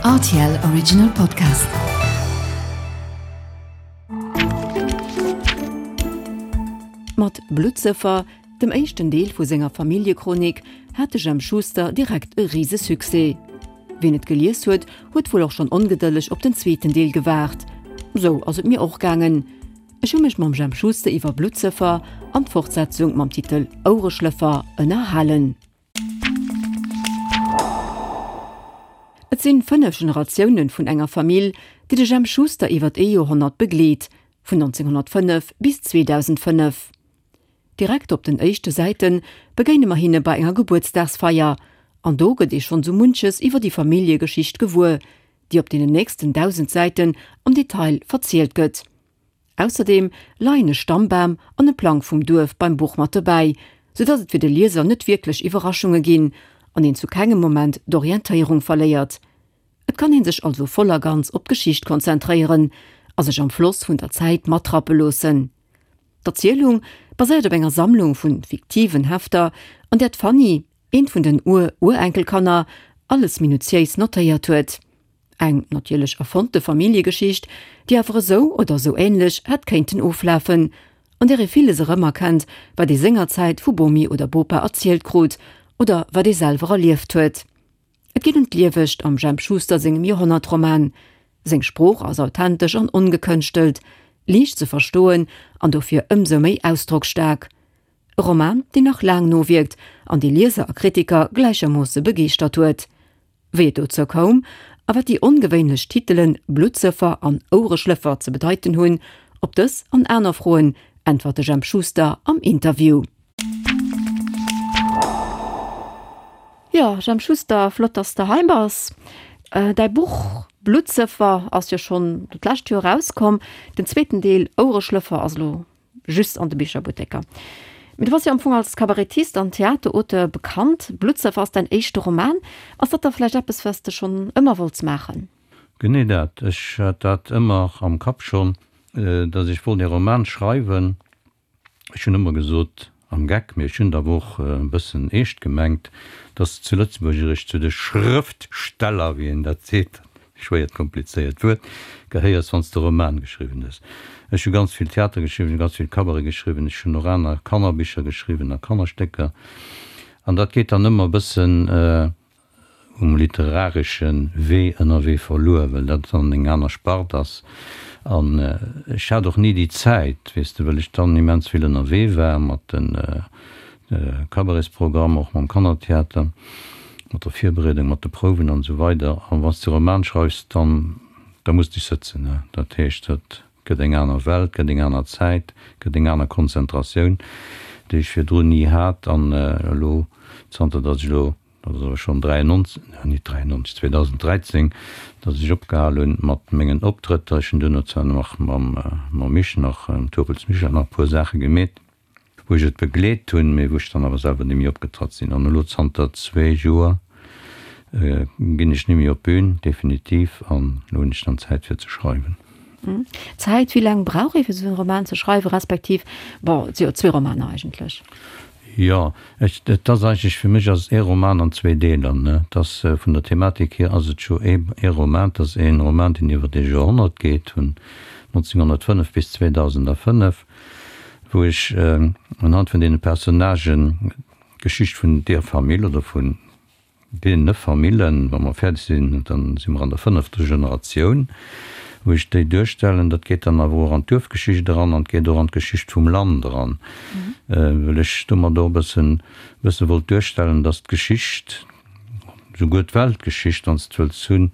Rtl Original Podcast. Mat Bluttsëffer, dem éischten Deel vu senger Familljechronik, hat de Jemp Schuster direkt e Risesuccès. Wien et gelies huet, huet wuel och schonn ongedëlleg op den zweeten Deel gewaart. Sou ass et mir och gaangen. Ech hu mech mam Jemp Schuster iwwer Bluttsëffer an d'Fortsetzung mam Titel Ouereschlëffer ënnerhalen. Et sinn 5 Generatiounen vun enger Famill, déi de Jemp Schuster iwwert ee Joerhonnert begleet, vun 1905 bis 2005. Direkt op den éischte Säite begéine mer hinne bei enger Gebuertsdagsfeier, an do gëtt ee schonn sou munches iwwer déi Familljegeschicht gewuer, déi op deenen nächsten 1.000 Säiten am Detail verzielt gëtt. Ausserdeem leien e Stammbam an e Plang vum Duerf beim Buch mat dobäi, sou dass et fir de Lieser net wierklech Iwwerraschunge ginn an een zu kengem Moment d'Orientéierung verléiert. Et kann een sech also voll a ganz op d'Geschicht konzentréieren a sech am Floss vun der Zäit matrappe loossen. D'Erzielung baséiert op enger Sammlung vu fiktiven Hefter, an där d'Fanny, eent vun den Ur-Urenkelkanner, alles minutiéis notéiert huet. Eng natierlech erfonnte Familljegeschicht, déi awer esou oder esou änlech hätt kéinten oflafen, an där ee villes erëmerkennt, wat ee sengerzäit vu Bomi oder Bopa erzielt krut oder wat ee selwer erlieft huet. Et geet ëm d'Liewegt am Jemp Schuster sengem Joerhonnertroman. Seng Sprooch ass authentesch an ongekënschtelt, liicht ze verstoen an dofir ëmsou méi ausdrocksstaark. E Roman, deen nach laang nowierkt an dee Lieser a Kritiker gläichermoosse begeeschtert huet. Wéi et dozou koum a wat déi ongewéinlech Titelen Bluttsëffer an Ouereschlëffer ze bedeiten hunn, op dës an aner Froen äntwert de Jemp Schuster am Interview. Jo, Jemp Schuster, flott dass de hei bass. Däi Buch Bluttsëffer ass jo schonn d'lescht Joer erauskomm. Den zweeten Deel Ouereschlëffer ass elo Just an de Bicherbutteker. Mee du bass jo am Fong als Kabarettist an Theaterauteur bekannt. Bluttsëffer ass däin éischte Roman. Ass dat da vläicht eppes, wat s de schonn ëmmer wollts maachen? Genee dat. Ech hat dat ëmmer am Kapp schonn, datt ech wollt ee Roman schreiwen. Ech hunn ëmmer gesot, am Geck, mee ech hunn et awer och e bëssen eescht gemengt, datt s de zu Lëtzebuerg eréischt zu de Schrëftsteller, wéi een dat seet, schwéiert komplizéiert Wuert, gehéiers, wann s de Roman geschriwwen hues. Ech hu ganz vill Theater geschriwwen, ech hu ganz vill Cabaret geschriwwen, ech hunn och aner Kannerbicher geschriwwen a Kannerstécker. An dat geet dann ëmmer e bëssen um literaresche Wee ënnerwee verluer, well dat dann eng aner Spart ass. An ech hat och ni déi Zäit, weess de, well ech dann immens vill ënnerwee war mat de Cabaretsprogramm, och mam Kannertheater, mat der Virbereedung, mat de Prouwen an esou weider. A wann s de Roman schreifs, dann, da muss de sëtzen, ne. Dat heescht, dat gëtt eng aner Welt, gëtt eng aner Zäit, gëtt eng aner Konzentratioun, déi ech virdrun ni hat. An elo, zanter datt ech elo, dat ass awer schonn 93, nee, net 93, 2013, datt ech opgehal hunn mat mengen Optrëtter, ech hunn duerno zwar nach mam, mam Mich nach, mam Turpels Michel nach e puer Saache gemeet, wou ech et begleet hunn, mee wou ech dann awer selwer ni méi opgetratt sinn. An elo zanter zwee Joer ginn ech ni méi op d'Bün, definitiv, an elo hunn ech dann Zäit fir ze schreiwen. Zäit, wéi laang brauch ee fir esou e Roman ze schreiwen, respektiv, bon, et si jo zwee Romaner eigentlech. Jo, ech, et ass eigentlech, fir mech ass et ee Roman an zwee Deeler, ne. Et ass, vun der Thematik hier ass et scho ee, ee Roman, et ass ee Roman, deen iwwer ee Joerhonnert geet, vun 1905 bis 2005. wou ech unhand vun deene Personnagen d'Geschicht vun deer Famill oder vun deene Famillen, wa mer fäerdeg sinn, da si mer an der fënnefter Generatioun, wou ech déi duerstellen. Dat geet dann awer och an d'Duerfgeschicht eran an et geet och an d'Geschicht vum Land eran, well ech domat och e bëssen, bësse wollt duerstellen, dass d'Geschicht, souguer d'Weltgeschicht, wann s de wëlls hunn,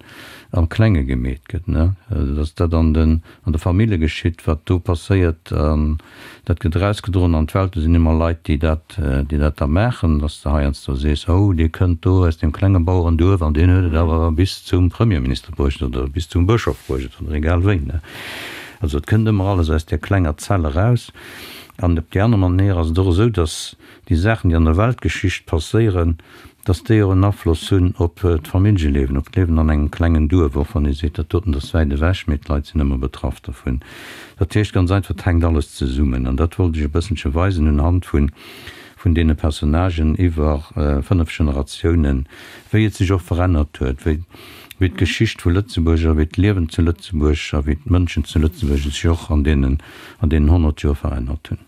am Klenge gemeet gëtt, ne? Dass dat an den, an de Famille geschitt, wat do passéiert, an dat gëtt erausgedroen an d'Welt. Do sinn ëmmer Leit, déi dat, déi dat da maachen, dass de heiansdo sees, oh, dee kënnt do aus deem klenge Bauerenduerf an deen huet et awer bis zum Premierminister bruecht oder bis zum Bëschof bruecht oder egal wéi, ne? Also et kënnt ëmmer alles aus där klenger Zell eraus. An op déi aner Manéier ass et och esou, dass déi Saachen, déi an der Weltgeschicht passéieren, dass déi och en Afloss hunn op d'Familljeliewen, op d'Liewen an engem klengen Duerf, och wann ee seet, dat doten ass wäit ewech, mee d'Leit sinn ëmmer betraff dervun. Dat heescht ganz einfach, et hänkt alles zesummen. An dat wollt ech e bësselche weisen unhand vun vun deene Personnagen iwwer 5 Generatiounen, wéi et sech och verännert huet, wéi. wéi d'Geschicht vu Lëtzebuerg a wéi d'Liewen zu Lëtzebuerg a wéi d'Mënschen zu Lëtzebuerg sech och an deenen, an deenen 100 Joer verännert hunn.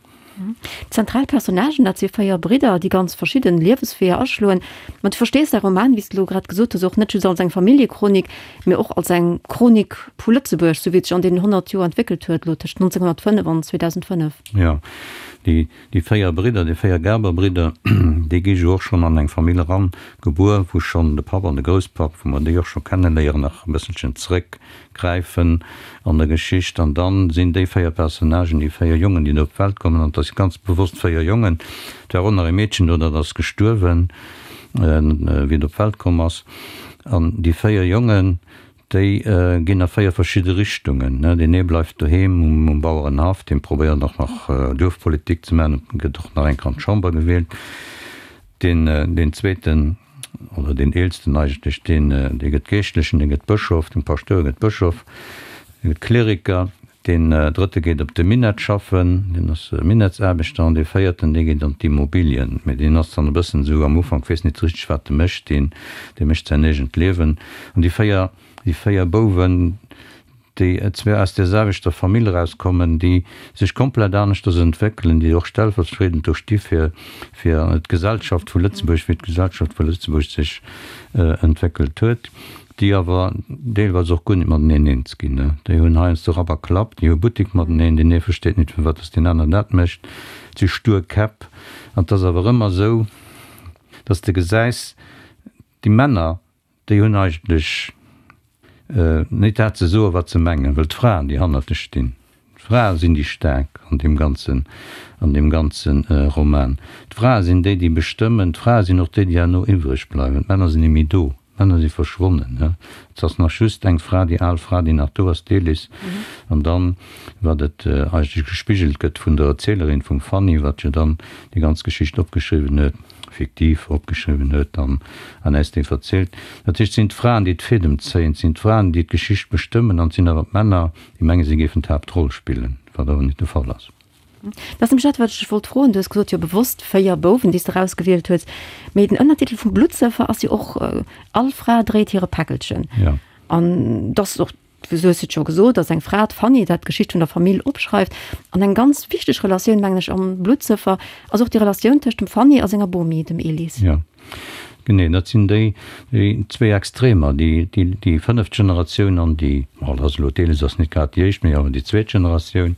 D'zentral Personnagen, dat si 4 Bridder, déi ganz verschidden Liewesweeër aschloen. Ma du verstees däi Roman, wéi s de elo grad gesot hues, och net just als eng Familljechronik, mee och als eng Chronik vu Lëtzebuerg, sou wéi et sech an deenen 100 Joer entwéckelt huet, elo tëscht 1905 an 2005. Jo, déi, déi 4 Bridder, déi 4 Gerber-Bridder, déi gi jo och schonn an eng Famill eran gebuer, wou schonn de Papp an de Grousspapp, wou mer déi och scho kenneléieren, nach e bësselchen zréck gräifen an der Geschicht an dann sinn déi 4 Personnagen, déi 4 Jongen, déi do op d'Welt kommen, an et ass ganz bewosst 4 Jongen, et war och nach e Meedchen do, dat ass gestuerwen, wéi et op d'Welt komm ass, an déi 4 Jongen, déi ginn a 4 verschidde Richtungen, deen ee bleift doheem um Bauerenhaff, dee probéiert och nach Duerfpolitik ze maachen, gëtt och nach eng Kéier an d'Chamber gewielt. Deen, deen zweeten, oder deen eelsten eigentlech, deen, dee gëtt Geeschtlechen, dee gëtt Bëschof, den Paschtouer gëtt Bëschof, dee gëtt Kleriker. Deen drëtte geet op de Minett schaffen, deen ass Minettsaarbechter. An dee véierten, dee geet an d'Immobilien, mee deen ass dann e bëssen esou am Ufank, weess nit richteg, wat e mécht, deen, dee mécht säin eegent Liewen. An déi 4, déi 4 Bouwen, déi zwar aus där selwechter Famill erauskommen, déi sech komplett aneschters entwéckelen, déi och stellvertriedend do sti fir fir d'Gesellschaft vu Lëtzebuerg, wéi d'Gesellschaft vu Lëtzebuerg sech entwéckelt huet, déi awer deelweis och guer net mateneen eens ginn. Déi hunn heiansdo Rapp a Klapp, déi hu Buttek mateneen, deen ee versteet net, firwat datt deen aner dat mécht, et si stur Käpp. An et ass awer ëmmer esou, datt s de gesäis, déi Männer, Déi hunn eigentlech net dat ze soen, wat se mengen, well d'Fraen, déi hannert lech stinn, d'Frae sinn déi Staark an deem ganzen, an deem ganze Roman. D'Frae sinn déi, déi bestëmmen. D'Frae sinn och déi, déi herno iwwreg bleiwen. D'Männer sinn net méi do. D'Männer si verschwonnen. Et ass nach just eng Fra, déi al Fra, déi nach do ass, d'Elis. An dann, wat et eigentlech gespigelt gëtt vun der Erzielerin, vum Fanny, wat jo dann déi ganz Geschicht opgeschriwwen huet, fiktiv opgeschriwwen huet an an äis déi verzielt. Dat heescht, et sinn d'Fraen, déi d'Fädem zéien, et sinn d'Fraen, déi d'Geschicht bestëmmen an et sinn awer d'Männer, déi mengen, si géifen d'Haaptroll spillen, wat awer net de Fall ass. Dat ass nämlech dat, wat ech dech wollt froen. Du hues gesot, jo bewosst 4 Bouwen, déi s de erausgewielt hues. Mee den Ënnertitel vum Bluttsëffer ass jo och All Fra dréit hire Päckelchen. Jo. An dat ass och Du hues et scho gesot, dass eng Fra, d'Fanny, dat d'Geschicht vun der Famill opschreift. An eng ganz wichteg Relatioun, mengen ech, am Bluttsëffer ass och déi Relatioun tëscht dem Fanny a senger Bomi, dem Elis. Jo, genee. Dat sinn déi, déi zwee Extremer, déi, déi, déi fënneft Generatioun an déi, bon, dat ass elo, d'Elis ass net grad déi éischt, mee awer déi zweet Generatioun,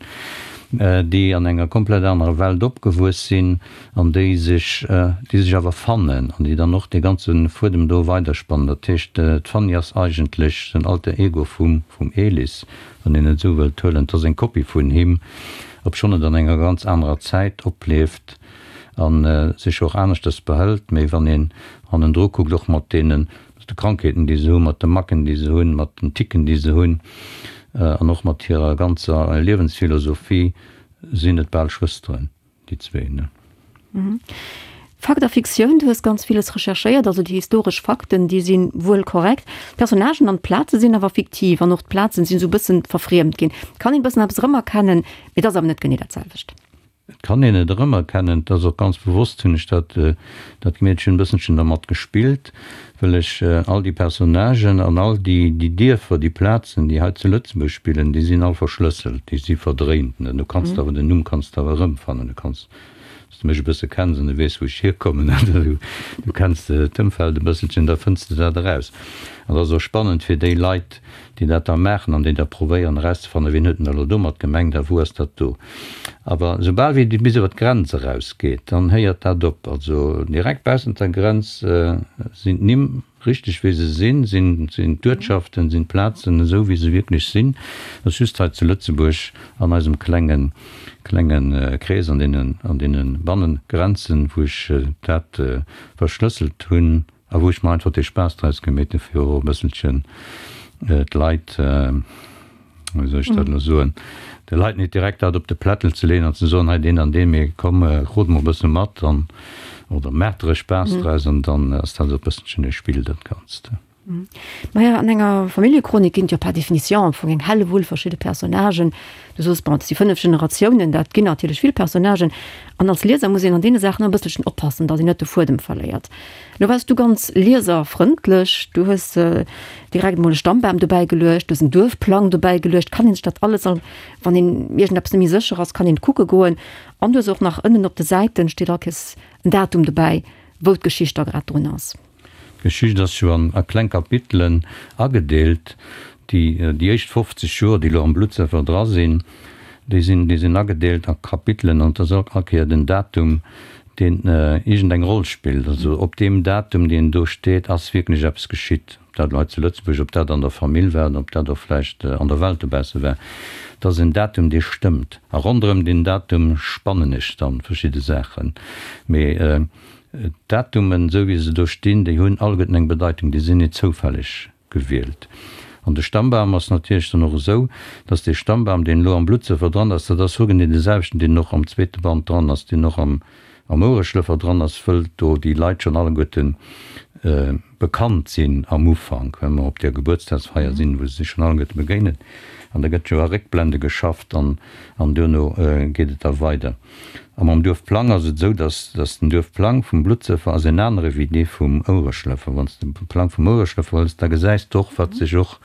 déi an enger komplett anerer Welt opgewuess sinn, an déi sech, déi sech awer fannen an déi dann och dee ganze Fuedem do weiderspannen. Dat heescht, d'Fanny ass eigentlech den Alter Ego vum, vum Elis, wann een et esou wëllt huelen. Et ass eng Kopie vun him, obschonn et an enger ganz anerer Zäit oplieft a sech och aneschters behëlt. Mee wann een hannendru kuckt, och mat deenen, mat de Krankheeten, déi se hunn, mat de Macken, déi se hunn, mat den Ticken, déi se hunn, an och mat hirer ganzer Liewensphilosophie, sinn et bal Schwësteren. Déi zwee, ne? Fakt a Fiktioun, du hues ganz villes recherchéiert, also déi historesch Fakten, déi si wuel korrekt. D'Personnagen an d'Plaze sinn awer fiktiv an och d'Plazen sinn esou e bëssen verfriemt ginn. Et kann een e bëssen eppes erëmerkennen, mee et ass awer net genee dat selwecht. Et kann een et erëmerkennen, et ass och ganz bewosst hunn ech dat dat gemeet, ech hunn e bësselchen dermat gespillt, well ech all déi Personnagen an all déi déi Dierfer, déi Plazen, déi hei zu Lëtzebuerg spillen, déi sinn all verschlësselt, déi si verdréint. Du kanns awer den Numm kanns de awer erëmfannen. Du kanns, wann s de mech e bësse kenns an du weess, wou ech hierkommen, du kenns d'Ëmfeld e bësselchen, da fënns de dat eraus. An dat ass och spannend fir déi Leit, déi dat da maachen an déi da probéieren erauszefannen, wien huet denn elo domat gemengt a wou ass dat do. Awer soubal wéi et bis iwwer d'Grenz erausgeet, dann héiert dat op. Also direkt baussent der Grenz sinn d'Nimm richteg wéi se sinn, sinn d'Uertschaften, sinn d'Plazen esou wéi se wierklech sinn. Et ass just hei zu Lëtzebuerg an eisem klenge klenge Krees, an deenen an deene Bannengrenzen, wou ech dat verschlësselt hunn, A wou ech mer einfach dee Spaass draus gemeet hunn, fir och e bësselchen d'Leit, wéi soll ech dat elo soen, de Leit net direkt dat op de Plättel ze leeën an ze soen, hei deen an deen, mee komm, rot mol e bësse mat an, oder maacht der e Spaass draus an dann ass dat och e bësselchen e Spill, dat Ganzt. Maja, an enger Familljechronik ginn et jo par définition am Fong eng Hellewull verschidde Personnagen. Du soos, bon, et si 5 Generatiounen, dat ginn natierlech vill Personnagen. An als Lieser muss een an deene Saachen e bësselchen oppassen, datt een net de Fuedem verléiert. Lo waars du ganz lieserfrëndlech, du hues direkt emol e Stammbam dobäi geluecht, du hues en Duerfplang dobäi geluecht. Kann een sech dat alles, wann een iergendeppes net méi sécher ass, kann een kucke goen. An du hues och nach ënnen op de Säiten steet all Kéiers en Datum dobäi, wou d'Geschicht da grad drun ass. D'Geschicht ass jo an a kleng Kapitelen agedeelt. Déi déi éischt 50 Joer, déi elo am Bluttsëffer dra sinn, déi sinn déi sinn agedeelt a Kapitelen an et ass all Kéier den Datum, deen iergendeng Roll spillt. Also op deem Datum, deen do steet, ass wierklech eppes geschitt. Ob dat elo hei zu Lëtzebuerg, ob dat an der Famill war oder ob dat och vläicht an der Welt dobausse war. Et ass en Datum, dee stëmmt. A ronderëm deen Datum spannen ech dann verschidde Saachen. Mee D'Datumen, esou wéi se do stinn, déi hunn alleguerten eng Bedeitung, déi sinn net zoufälleg gewielt. An de Stammbam ass natierlech dann och esou, dass dee Stammbam, deen elo am Bluttsëffer dran ass, dat ass hogenee dee selwechten, deen och am zweete Band dran ass, deen och am Ouereschlëffer dran ass, wëll do déi Leit schonn alleguerte bekannt sinn am Ufank, well mer op där Gebuertsdagsfeier sinn, wou se sech schonn alleguerte begéinen. An da gëtt jo a Réckblende geschafft an duerno geet et da weider. A mam Duerfplang ass et esou, dass dass den Duerfplang vum Bluttsëffer ass en anere wéi dee vum Ouereschlëffer. Wann s de de Plang vum Ouereschlëffer hëls, da gesäis de och, wat sech och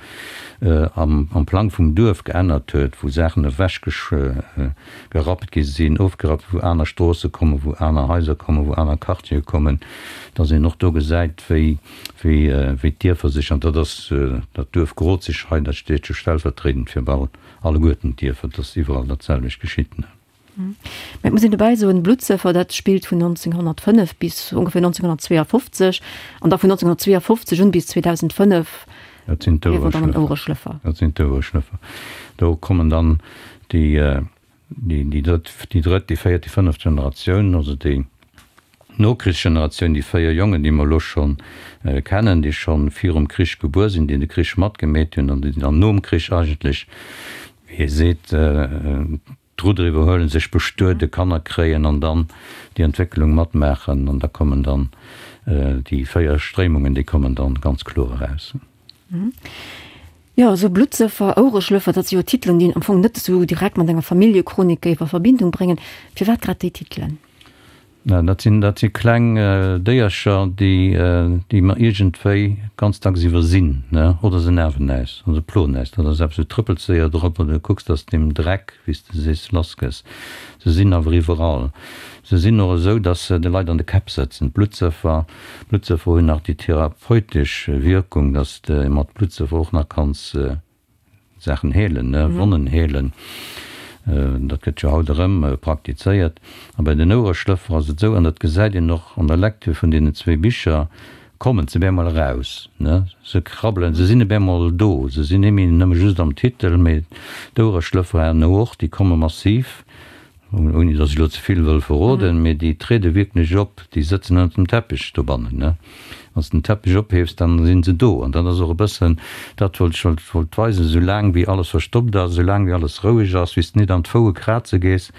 am am Plang vum Duerf geännert huet, wou Saachen ewech gerappt gi sinn, ofgerappt, wou aner Stroosse kommen, wou aner Haiser kommen, wou aner Quartiere kommen, dass een och do gesäit, wéi wéi wéi d'Dierfer sech, an dat ass dat Duerf Grozig hei, dat steet jo stellvertriedend fir bal alleguerten d'Dierfer, dass iwwerall dat selwecht geschitt. Mä et muss een dobäi soen, Bluttsëffer, dat spillt vun 1905 bis ongeféier 1952 an da vun 1952 un bis 2005 Dat sinn d'Ouereschlëffer. Dat sinn d'Ouereschlëffer. Do kommen dann déi, déi drëtt, déi drëtt, déi véiert, déi fënneft Generatioun, also déi Nokrichsgeneratioun, déi 4 Jongen, déi mer elo scho kennen, déi scho virum Krich gebuer sinn, déi de Krich matgemeet hunn an déi dann nom Krich eigentlech, wéi ee seet, d'Rudder iwwerhuelen, sech bestueden, Kanner kréien an dann déi Entwécklung matmaachen. An da kommen dann déi 4 Stréimungen, déi kommen dann ganz kloer eraus. Jo, esou Bluttsëffer, Ouereschlëffer, dat si jo Titelen, déi een am Fong net esou direkt mat enger Familljechronik géif a Verbindung bréngen. Firwat grad déi Titelen? Na, dat sinn, dat si kleng Déiercher, déi, déi mer iergendwéi ganz dacks iwwersinn, ne? Oder se nerven äis, oder se ploen äis. Dat ass eppes, du trëppels séier drop oder du kucks, dass de dem Dreck, wéi s de sees, lass gëss. Se sinn awer iwwerall. Se sinn och esou, dass se de Leit an de Käpp sëtzen. D'Bluttsëffer, d'Bluttsëffer hunn nach déi therapeutesch Wierkung, dass de mat Bluttsëffer och nach kanns Saachen heelen, ne, Wonnen heelen, dat gëtt jo haut erëm praktizéiert. A bei den Ouereschlëffer ass et esou, an dat gesäit een och an der Lecture vun deenen zwee Bicher, kommen se bemol eraus, ne, se krabbelen, se sinn bemol do, se sinn net méi nëmme just am Titel, mee d'Ouereschlëffer herno och, déi komme massiv. Ouni datt ech elo ze vill wëll verroden, mee déi triede wierklech op, déi sëtzen ënnert dem Teppech dobannen, ne? Wann s de den Teppech ophiefs, dann si se do. An dat ass och e bëssen dat, wat ech wollt wollt weisen, Esou laang wéi alles verstoppt ass, esou laang wéi alles roueg ass, wéi s de nit an d'Foue kraze gees,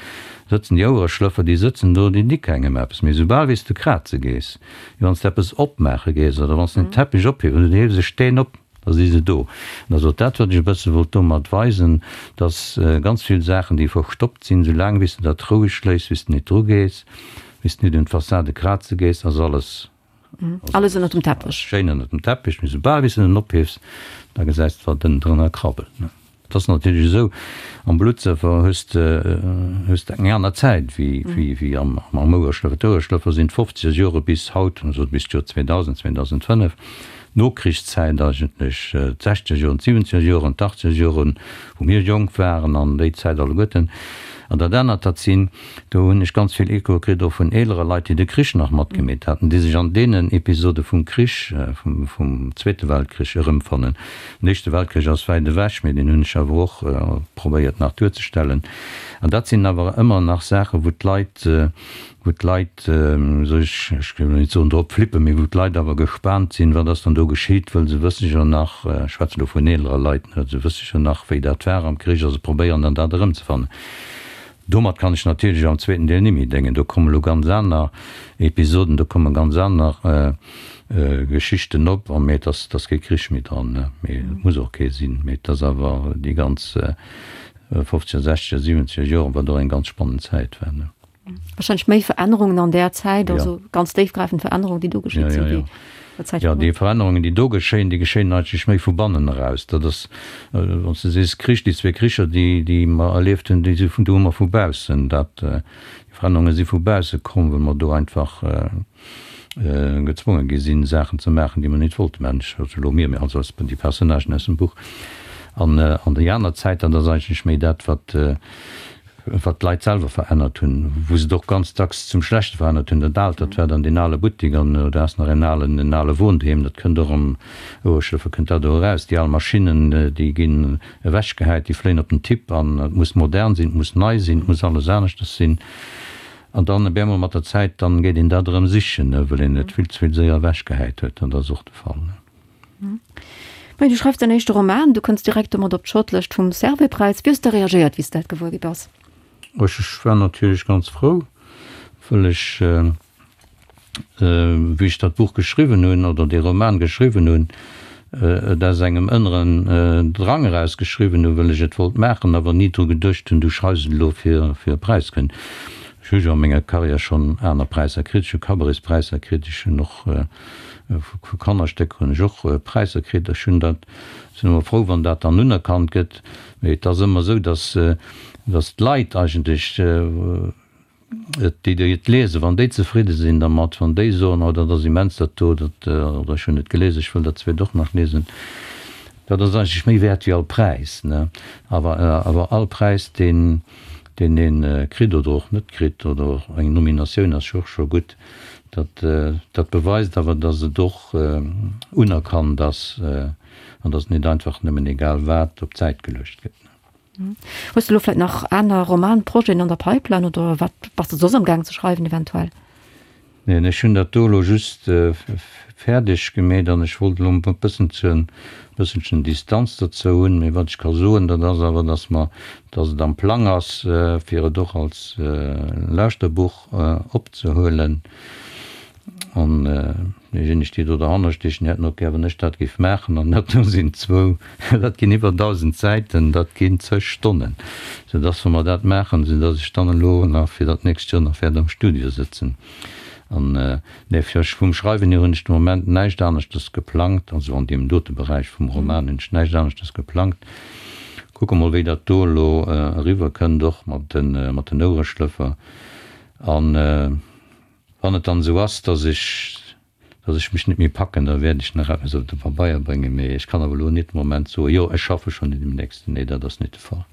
sëtzen déi Ouereschlëffer, déi sëtzen do, déi di kengem eppes. Mee esoubal wéi s de kraze gees, wéi wann s de eppes opmaache gees oder wann s de den Teppech ophiefs oder du hiefs e Steen op, Da si se do. An dat ass och dat, wat ech e bësse wollt domat weisen, dass ganz vill Saachen, déi verstoppt sinn, esou laang wéi s de dat roueg léiss, wéi s de nit drugees, wéi s de nit un d'Fassade kraze gees, ass alles, ass alles ënnert dem Teppech. Schéin ënnert dem Teppech. Mee soubal wéi s de en ophiefs, da gesäis de, wat ënnendrënner krabbelt. Et ass natierlech esou, am Bluttsëffer hues de hues de eng aner Zäit wéi wéi wéi am am Ouereschlëffer. D'Ouereschlëffer sinn d'fofzeger Jore bis haut, also bis d'Joer 2000, 2005, d'Nokrichszäit eigentlech, d'sechzeger Joren, d'siwwenzeger Joren, d'achtzeger Joren, wou mir jonk waren an déi Zäit alleguerten. An dat anert, dat sinn, do hunn ech ganz vill Echoe kritt och vun eelere Leit, déi de Krich nach matgemeet haten, déi sech an deenen Episode vum Krich, vum vum Zweete Weltkrich erëmfannen. Den Éischte Weltkrich ass wäit ewech, mee deen hunn ech awer och probéiert nach duerzestellen. An dat sinn awer ëmmer nach Saachen, wou d'Leit, wou d'Leit, wéi soll ech, ech wëll net soen drop flippen, mee wou d'Leit awer gespaant sinn, wat ass dann do geschitt, wëll se wësse jo nach, ech schwätzen elo vun eelere Leit, ne, se wësse jo nach, wéi dat war am Krich a se probéieren dann dat erëmzefannen. Domat kann ech natierlech am zweeten Deel nimmi déngen. Do kommen elo ganz aner Episoden, do komme ganz aner. Geschichten op, a mee et ass, et ass kee Krich méi dran, ne, mee et muss och kee sinn, mee et ass awer déi ganz fofzeger, sechzeger, siwenzeger Joren, wat och eng ganz spannend Zäit war, ne. Wahrscheinlech méi Verännerungen an där Zäit, also ganz déifgräifend Verännerungen, déi do geschitt sinn, wéi der Zäit virdrun. Jo, déi Verännerungen, déi do geschéien, déi geschéien eigentlech méi vu bannen eraus. Dat ass, wann s de sees Krich, déi zwee Kricher, déi, déi mer erlieft hunn, déi si vun, do hu mer vu baussen dat, déi Verännerunge si vu bausse komm, well mer do einfach gezwonge gi sinn, Saachen ze maachen, déi mer net wollte maachen. Ech, also elo mir, mee also déi Personnagen aus dem Buch. An, an déi aner Zäit, dat ass eigentlech méi dat, wat, wat d'Leit selwer verännert hunn, wou se et och ganz dacks zum Schlechte verännert hunn. Dat Aalt, dat war dann deen ale Buttik an do ass nach en alen, en ale Wohnheem, dat kënnt och am Oueschlëffer kënnt dat do eraus. Déi al Maschinnen, déi ginn ewechgehäit, déi fléien op den Tipp an et muss modern sinn, et muss nei sinn, et muss alles aneschters sinn. An dann op eemol mat der Zäit, dann geet een dat erëm sichen, well een et vill ze vill séier ewechgehäit huet. An dat ass och de Fall. Majo, du schreifs däin éischte Roman, du kënns direkt domat op d'Shortlëscht vum Servais-Präis. Wéi hues de reagéiert, wéi s de dat gewuer gi bass? Ech war natierlech ganz frou, wëll ech, wéi ech dat Buch geschriwwen hunn, oder dee Roman geschriwwen hunn, et aus engem ënneren Drang eraus geschriwwen hunn, wëll ech et wollt maachen, awer ni dru geduecht hunn, du schreifs et elo fir e Präis ze kréien. Ech hu jo a menger Karriär schonn aner Präisser kritt, ech hu Cabarets-Präisser kritt, ech hunn och Vu Kannerstécker hunn ech och Präisser kritt. Ech hunn dat, sinn ëmmer frou, wann dat dann unerkannt gëtt. Mee et ass ëmmer esou, datt, datt d'Leit eigentlech, déi déi et liesen, wann déi zefridde sinn dermat, wann déi soen, oh dat ass immens dat do, dat, oder ech hunn et gelies, ech wëll dat zweet och nach liesen, dat ass eigentlech méi wäert wéi all Präis, ne. Awer, awer all Präis, deen, deen ee kritt oder och net kritt, oder och eng Nominatioun ass jo och scho gutt, Dat, dat beweist awer, dass et och unerkannt ass an dass net einfach nëmmen egal wat op d'Säit geluecht gëtt. Hues de elo vläicht nach aner Romanprojeten an der Pipeline oder wat bass de soss am gaang ze schreiwen eventuell? Neen, ech hunn dat do elo just fäerdeg gemeet an ech wollt elo e bësselchen, bësselchen Distanz dozou hunn. Mee wat ech ka soen, dat ass awer, dass mer, dass et am Plang ass, fir et och als Lauschterbuch opzehuelen. An déijéineg, déi do derhanner stiechen, hätten och gär, wann ech dat géif maachen. An dat do sinn zwou, dat ginn iwwer 1.000 Säiten, dat ginn zeg Stonnen. Soudass, wa mer dat maachen, soudass ech dann elo nach fir dat nächst Joer nach wäert am Studio sëtzen. An, nee, fir ech vum Schreiwen hier hunn ech de Moment näischt aneschters geplangt, also an deem dote Beräich vum Roman hunn ech näischt aneschters geplangt. Kucke mol, wéi dat do elo eriwwerkënnt, och mat den Ouereschlëffer. An wann et dann esou ass, dass ech, dass ech mech net méi packen, da wäert ech nach eppes op de Pabeier bréngen. Mee ech kann awer elo net de Moment soen, jo, ech schaffe schonn un deem nächsten. Nee, dat ass net de Fall.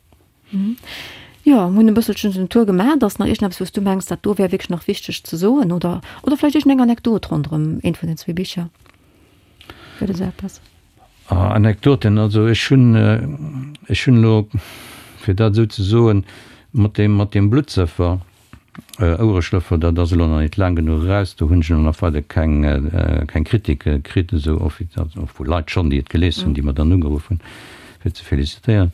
Jo, mir hunn e bësselchen den Tour gemaach. Ass nach iergendeppes, wou s du mengs, dat do wär wierklech nach wichteg ze soen? Oder, oder vläicht iergendeng Anekdot ronderëm eent vun den zwee Bicher? Gëtt et esou eppes? Anekdoten, also ech hunn, ech hunn elo, fir dat esou ze soen, mat deem, mat deem Bluttsëffer, Ouereschlëffer, dat ass elo nach net laang genuch eraus, do hunn ech elo nach weider keng, keng Kritike kritt, esou offiziell, also vu Leit schonn, déi et gelies hunn, déi mer dann ugeruff hunn, fir ze felicitéieren.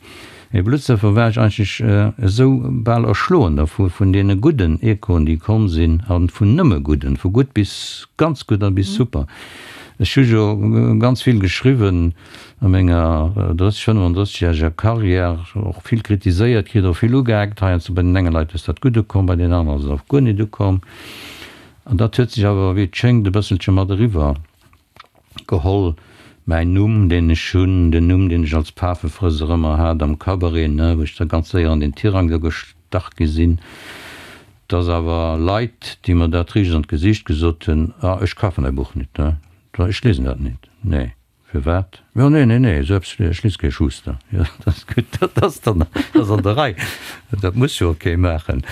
Mee Bluttsëffer war ech eigentlech esou bal erschloen dervu, vun deene gudden Echoen, déi komm sinn, a vun nëmme gudden, vu gutt bis ganz gutt a bis super. Ech hu jo ganz vill geschriwwen a menger 30, 35 järeger Carrière, och vill kritiséiert kritt, och vill ugeeckt. Heiansdo bei den enge Leit ass dat gutt ukomm, bei den aneren ass et och guer net ukomm. An dat huet sech awer, wéi et schéngt, e bësselche mat eriwwer geholl. Mäin Numm, deen ech hunn, den Numm, deen ech als Pafefrësser ëmmer hat am Cabaret, ne, wou ech da ganz séier an den Tirang do gestach gi sinn, dass awer Leit, déi mer dat riicht an d'Gesiicht gesot hunn, Ah, ech kafen däi Buch nit, ne, ech liesen dat nit. Nee. Firwat? Jo, nee, nee, nee, esou eppes, ech lies kee Schuster. Jo, dat ass gutt, dat ass dann, dat ass an der Rei. Dat muss jo och kee maachen.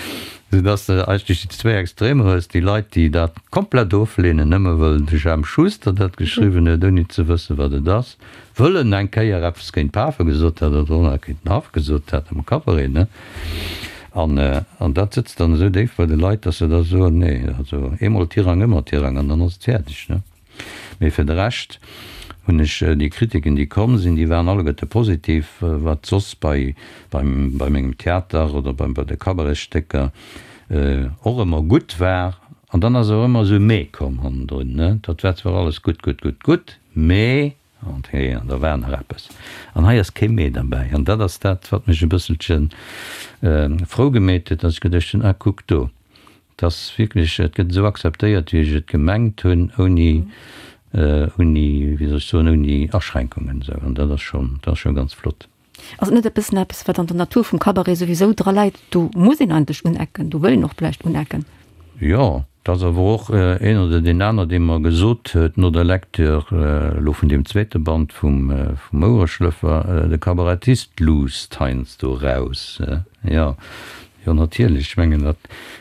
Soudass de eigentlech déi zwéi Extremer hues, déi Leit, déi dat komplett ofleenen, nëmme wëll de Jemp Schuster dat geschriwwen huet, ouni ze wëssen, wat et ass, wëll en eng Kéier eppes géint d'Pafe gesot hat oder och nach géint den Haff gesot hat am Cabaret, ne? An, an dat sëtzt dann esou déif bei de Leit, dass se da soen, nee, also eemol Tirang, ëmmer Tirang, an dann ass et fäerdeg, ne? Mee fir de Rescht hunn ech déi Kritiken, déi komm sinn, déi waren alleguerte positiv, wat soss bei, beim, bei mengem Theater oder bei, bei de Cabaretstécker och ëmmer gutt war. An dann ass awer ëmmer esou e Mee komm hannendrun, ne? Dat war zwar alles gutt, gutt, gutt, gutt, mee, an hee, an da war nach eppes. An hei ass kee Mee derbäi. An dat ass dat, wat mech e bësselche frou gemeet huet, dass ech geduecht hunn, ah, kuck do, 't ass wierklech, et gëtt esou akzeptéiert, wéi ech et gemengt hunn, ouni, ouni, wéi soll ech soen, ouni Aschränkungen esou. An dat ass schonn, dat ass scho ganz flott. Ass et net e bëssen eppes, wat an der Natur vum Cabaret souwisou dra läit? Do muss een eigentlech unecken, do wëll een och vläicht unecken. Jo, et ass awer och een oder deen aner, dee mer gesot huet no der Lecture elo vun deem zweete Band vum Ouereschlëffer, De Kabarettist luusst heiansdo eraus. Jo, Jo, natierlech. Ech mengen, dat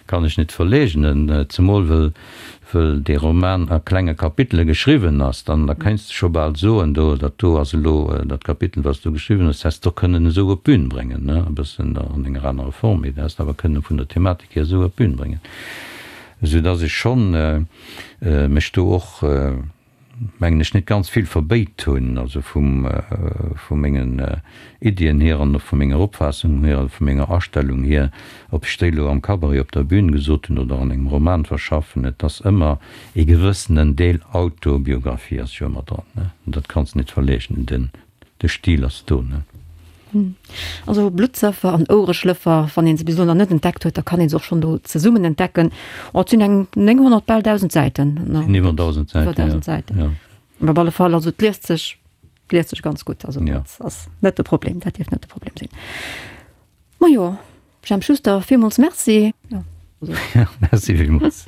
kann ech net verleegnen, zemol wëll, wëll dee Roman a klenge Kapitele geschriwwen ass. Dann, da kéints de scho bal soen, do, dat do ass elo dat Kapitel, wat s du geschriwwen hues, häss de och kënnen esou op d'Bün bréngen, ne, e bëssen an enger anerer Form, mee dat häss de awer kënnen vun der Thematik hier esou op d'Bün bréngen, soudass ech schonn mech do och, mengen ech, net ganz vill verbéit hunn, also vum, vu mengen Iddien hier an och vu menger Opfaassung hier a vu menger Astellung hier, ob ech déi elo am Cabaret op der Bühn gesot hunn oder an engem Roman verschaffen, et ass ëmmer ee gewëssenen Deel Autobiographie ass jo ëmmer dran, ne? Dat kanns de net verleegnen, den, De Stil ass do, ne? Also Bluttsëffer an Ouereschlëffer, wann een se bis elo nach net entdeckt huet, da kann een se och schonn do zesummen entdecken. Oh, et sinn eng 900, bal 1.000 Säiten. Sinn iwwer 1.000 Säiten, Iwwer 1.000 Säiten. Ja. Op alle Fall, also et liest sech, et liest sech ganz gutt. Also Ja. dat ass net de Problem, dat dierft net de Problem sinn. Majo, Jemp Schuster, villmools Merci. Ja. Merci villmools.